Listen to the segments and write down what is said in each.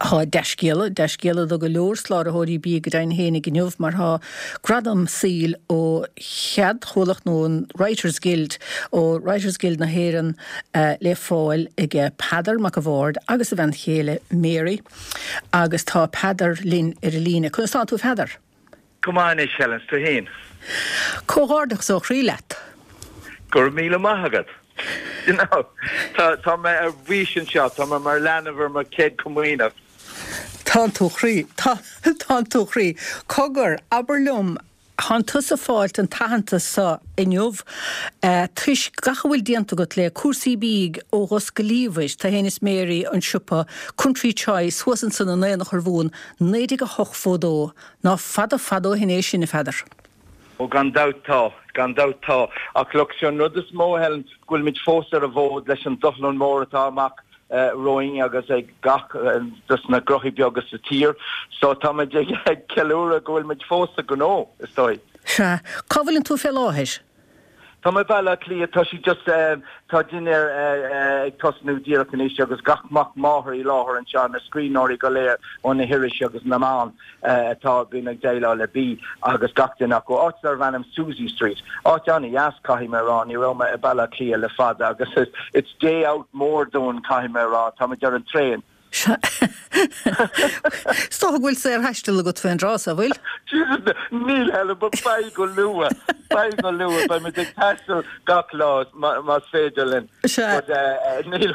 Tá dea-scéala, dea-scéala do go leor soláthróirí bídh go deimhin fhéinig inniu mar tá gradam saoil ó cheadchomhlacht nó an Writers Guild, ó Writers Guild na hÉireann le fáil aige Peadar Mac a' Bhaird agus a bhean chéile Mary agus tá Peadar linn ar an líne. Conas tánn tú a Pheadair? Go maith anois Helen, 's tú fhéin? Comhghairdeachas ó chroí leat. Go raibh míle maith agat. You know, tá, tá mé ar bís anseo, tá mé mar leanbh ar mo chéad comaoineach. Tánn tú a chroí, tá, tánn tú a chroí. Cogar, abair liom, thánn tusa fáilt an t-aitheantas so inniu toisc gach a bhfuil déanta agat le cúrsaí bídh ó Dhos go Liamhais, tú fhéin is Mary, an siopa Country Choice thuas ansan in Aonach Urmhumhan, 1908 fódó. Ná fada fada ó shin é sin, a Pheadair. Ó gan dabht tá, gan dabht tá. Ach look, sé an rud is mó, Helen, go bhfuilimid fós ar an bhfód leis an dushlán mór atá amach romhainn agus ag gach dos na gnóthaí beaga sa tír. So táimid ag ceiliúradh go bhfuilimid fós sa ghnó, is dóigh. Sea. Cá bhfuileann tú fé láthair? Tá mé i Baile Átha Cliath, tá sí just, tá dinnéar ag tosnú díreach anois agus gach mac máthar i láthair anseo, na scríbhneoirí go léir ó na hirisí agus na meáin atá bíonn ag déileáil le bia agus gach duine acu. Áit darbh ainm Suzy Street. Áit an-dheas caithfidh mé a rá, ní raibh mé i Baile Átha Cliath le fada agus it's day out mór dúinn caithfidh mé a rá, táimid ar an traein. Is dócha go bhfuil saorthaisteal agat faoin dtráth so, bhfuil? Jesus, níl Helen, but beidh go luath, beidh go luath, beidh muid ag taisteal gach lá más féidir linn. Sea. But níl,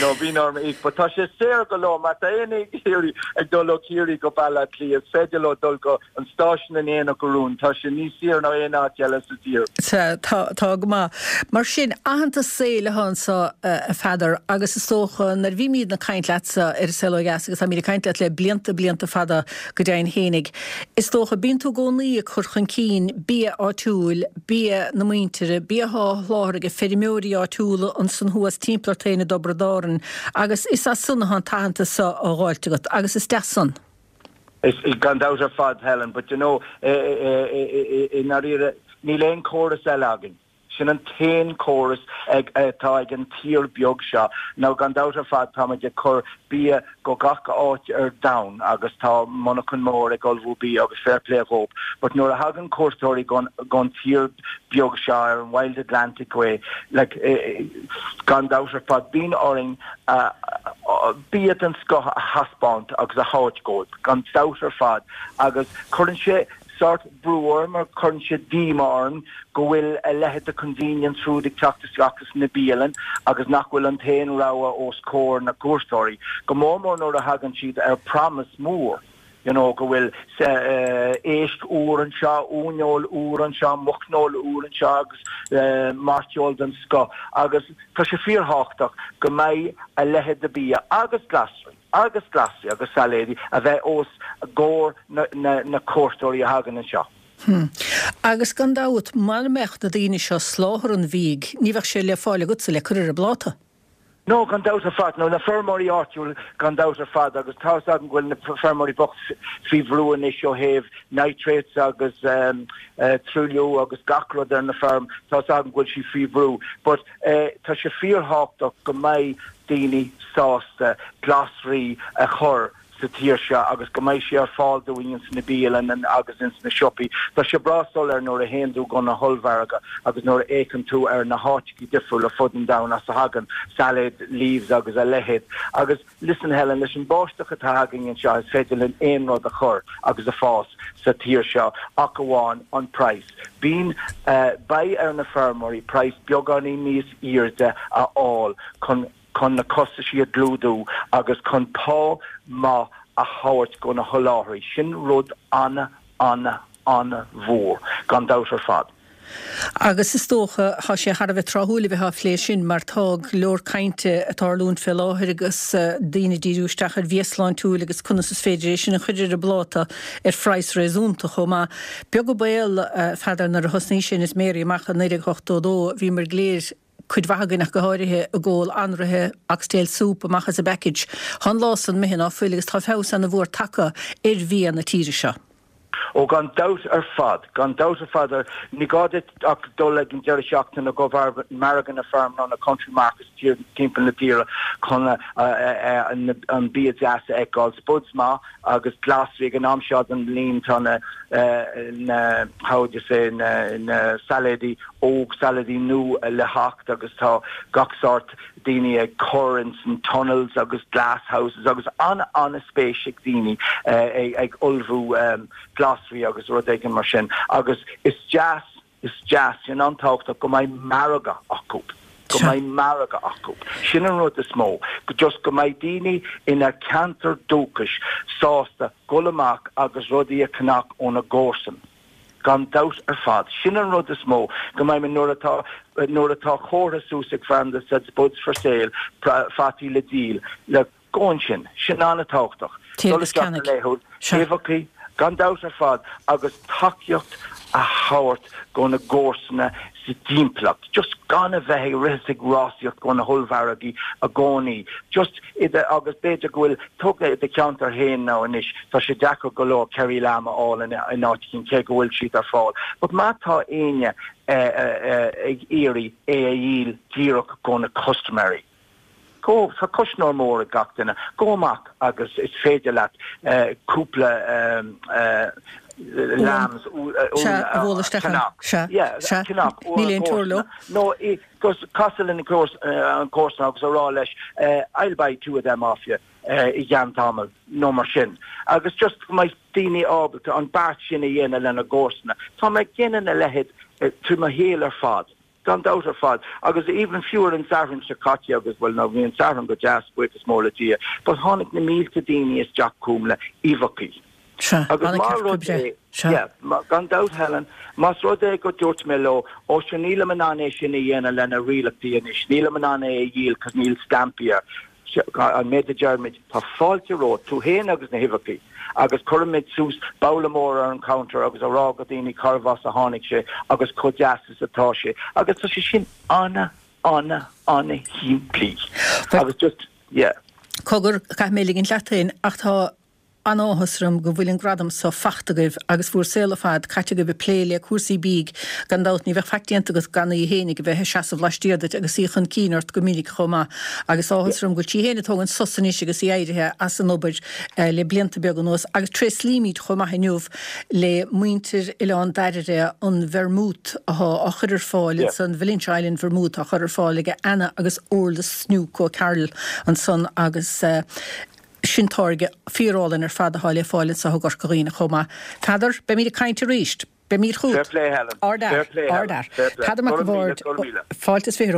no, bíonn orm íoc, but tá sé saor go leor, má tá éinne ag iarraidh ag dul ó Chiarraí go Baile Átha Cliath, is féidir leo dul go an stáisiún in Aonach Urmhumhan, tá sé níos saoire ná aon áit eile sa tír. Sea, tá, tá go maith. Mar sin, aitheantas saoil atá anso, a Pheadair, agus is dócha, nuair a bhímídne ag caint leatsa ar An Saol Ó Dheas, agus táimíd ag caint leat le blianta, blianta fada go deimhin fhéinig, is dócha, bíonn tú i gcónaí ag cur chun cinn bia áitiúil, bia na muintire, bia atá á sholáthar ag feirmeoirí áitiúla ansan thuas timpeall ort féin i dTiobraid Árann, agus is as san atá an t-aitheantas so á dh'fháilt agat, agus is deas san. Is, gan dabht ar fad, Helen, but you know, i ndáiríre, níl aon chóras eile againn. Sin an t-aon chóras atá ag an tír beag seo. Now, gan dabht ar fad, táimid ag cur bia go gach áit ar domhan agus tá monarchan mór ag ullmhú bia agus fair play dhóibh. But nuair a thagann cuairteoirí gon tír beag seo ar an Wild Atlantic Way, like, gan dabht ar fad, bíonn orainn bia den scoth a thaispeáint agus a thabhairt dhóibh, gan dabht ar fad, agus cuireann sé sórt brú orm or cuireann sé díomá orm go bhfuil a leithéid de convenience food ag teacht isteach sna bialann agus nach bhfuil an t-aon rogha os comhair na gcuairteoirí, go mór mór nuair a thagann siad ar promise mór. you know, go bhfuil éisc úr anseo, uaineoil úr anseo, muicneoil úr anseo agus mairteoil den scoth agus tá sé fíorthábhachtach go mbeidh a leithéid de bia agus glasraí agus glasraí agus sailéidí a bheith os comhair na cuairteoirí a thagann anseo. Hm. Agus gan dabht, mara mbeadh na daoine seo ag soláthar an bhídh, ní bheadh sé le fáil agatsa le cur ar an bpláta. No, gan dabht ar fad. No, na feirmeoirí áitiúil, gan dabht ar fad, agus tá 'fhios agam go bhfuil na feirmeoirí bocht faoi bhrú anois ó thaobh nitrates agus truailliú agus gach rud ar na feirm, tá 'fhios agam go bhfuil siad faoi bhrú. But tá sé fíorthábhachtach go mbeidh daoine sásta glasraí a chur sa tír seo agus go mbeidh sé ar fáil dúinn ins na bialanna agus ins na siopaí. Tá sé breá soiléir nuair a théann tú go na hollmhargadh agus nuair a fhéachann tú ar na háiteachaí difriúla fud an domhain as a thagann salad leaves agus a leithéid. Agus listen Helen, leis an báisteach atá againn anseo is féidir linn aon rud a chur agus a fás sa tír seo ach amháin an praghas. Bíonn, beidh ar na feirmeoirí praghas beagáinín níos airde a fháil chun chun na costaisí a chlúdú agus chun pá maith a thabhairt go na sholáthraí. Sin rud ana, ana, ana-mhór, gan dabht ar fad. Agus is dócha, tá sé thar a bheith tráthúil a bheith á phlé sin mar tá go leor cainte ag tarlúint fé láthair agus daoine ag díriú isteach ar bhia sláintiúil agus conas is féidir é sin a chur ar an bpláta ar phraghas réasúnta chomh maith. Beag an baol, a Pheadair, nuair a thosnaís féin is Mary amach i 1982, bhíomar go léir, cuid mhaith againn ach go háirithe, ag ól anraithe oxtail soup amach as an bpackage. Tá an lá san imithe ná fuil agus tá feabhas ana mhór tagtha ar bhia na tíre seo. Ó gan dabht ar fad, gan dabht ar fad. Ní gá duit ach dul ag an deireadh seachtaine go margadh na feirme nó na country markets timpeall na tíre chun an bia deas a fheiceáil. Spuds maith agus glasraí ag an am seo den bhliain tá na, na, how would you say, na, na sailéidí óg, sailéidí nua le theacht agus tá gach sórt daoine ag cur ins an tunnels agus glasshouses agus an-an-spéis ag daoine ag ullmhú glasraí agus rud éigin mar sin agus is deas, is deas, sin an-tábhachtach go mbeidh margadh acu, go mbeidh margadh acu. Sin an rud is mó, just go mbeidh daoine ina ceantar dúchais sásta dhul amach agus rudaí a cheannach óna gcomharsan. Gan dabht ar fad. Sin an rud is mó, go mbeidh mé, nuair atá, nuair atá comhartha suas ag fear that said spuds for sale, fataí le díol, le, go ansin. Sin an-tábhachtach. Téigh Dul agus isteach go ceannaigh. laethúil, Sea. uibheachaí, gan dabht ar fad, agus tacaíocht a thabhairt go na gcomharsana sa dtimpeallacht. Just gan a bheith ag rith is ag rásaíocht go na hollmhargaí i gcónaí. Just i do, agus b'fhéidir go bhfuil, tóg i do cheantar féin now anois, tá sé deacair go leor Kerry lamb a fháil in áit éicint cé go bhfuil siad ar fáil. But má tá éinne ag iarraidh é a dhíol díreach go na custaiméirí, go, tá cuisneoir mór ag gach duine, gabh amach agus is féidir leat cúpla lambs Sea, a bhualadh isteach ann. Sea, sea. Níl aon teora leo. Nó Gus casadh lena an comharsan agus a rá leis I'll buy two of them off you i gceann tamaill nó mar sin. Agus just go mbeidh daoine ábalta an beart sin a dhéanamh lena gcomharsana. Tá mé ag déanamh a leithéid trí mo shaol ar fad, gan dabht ar fad. Agus even fiú ar an Satharn seo caite agus, bhuel now bhí an Satharn go deas, buíochas mór le Dia, but tháinig na mílte daoine isteach chugam le uibheachaí. Sea, Agus an má ceart rud oibre. é, Sea. yeah, gan dabht Helen, más rud é go dúirt mé leo, ó sure nílim in ann é sin a dhéanamh lena rialachtaí anois, nílim in ann é a dhíol cos níl stampaí air. An méid a deirimid, tá fáilte romhat, tú féin agus na huibheachaí, agus cuirimid suas babhla mór ar an counter agus a rá go daoine cárbh as a tháinig sé agus chomh deas is atá sé. Agus tá sé sin ana, ana, ana shimplí. Agus just, yeah. Cogar, caithfidh mé ligint leat féin, ach tá An-áthas orm go bhfuil an gradam so fachta agaibh agus bhúr saol ar fad caite agaibh ag plé le cúrsaí bídh. Gan dabht ní bheadh faic déanta agat gan í fhéinig a bheith ag seasamh laistiar duit agus í chun cinn ort go minic chomh maith. Agus áthas orm go bhfuil sí fhéin ag tógaint sos anois agus í éirithe as an obair le blianta beaga anuas. Agus tréaslaímid chomh maith inniu le muintir Oileán Dairbhre an vermouth athá á chur ar fáil ansan, Valentia Island Vermouth á chur ar fáil ag Anna agus Orla Snook O'Carroll ansan agus Sin táirge fíorálainn ar fad atá le fáil anseo i gCorca Dhuibhne chomh maith. Peadar, beimid ag caint arís. Beimid chugat. Fair play Helen. Ard Fair fhear. play Helen. Ard fhear. Fair play. Peadar Mac Go an raibh míle, Bhaird, go raibh míle. fáilte is 20 romhat.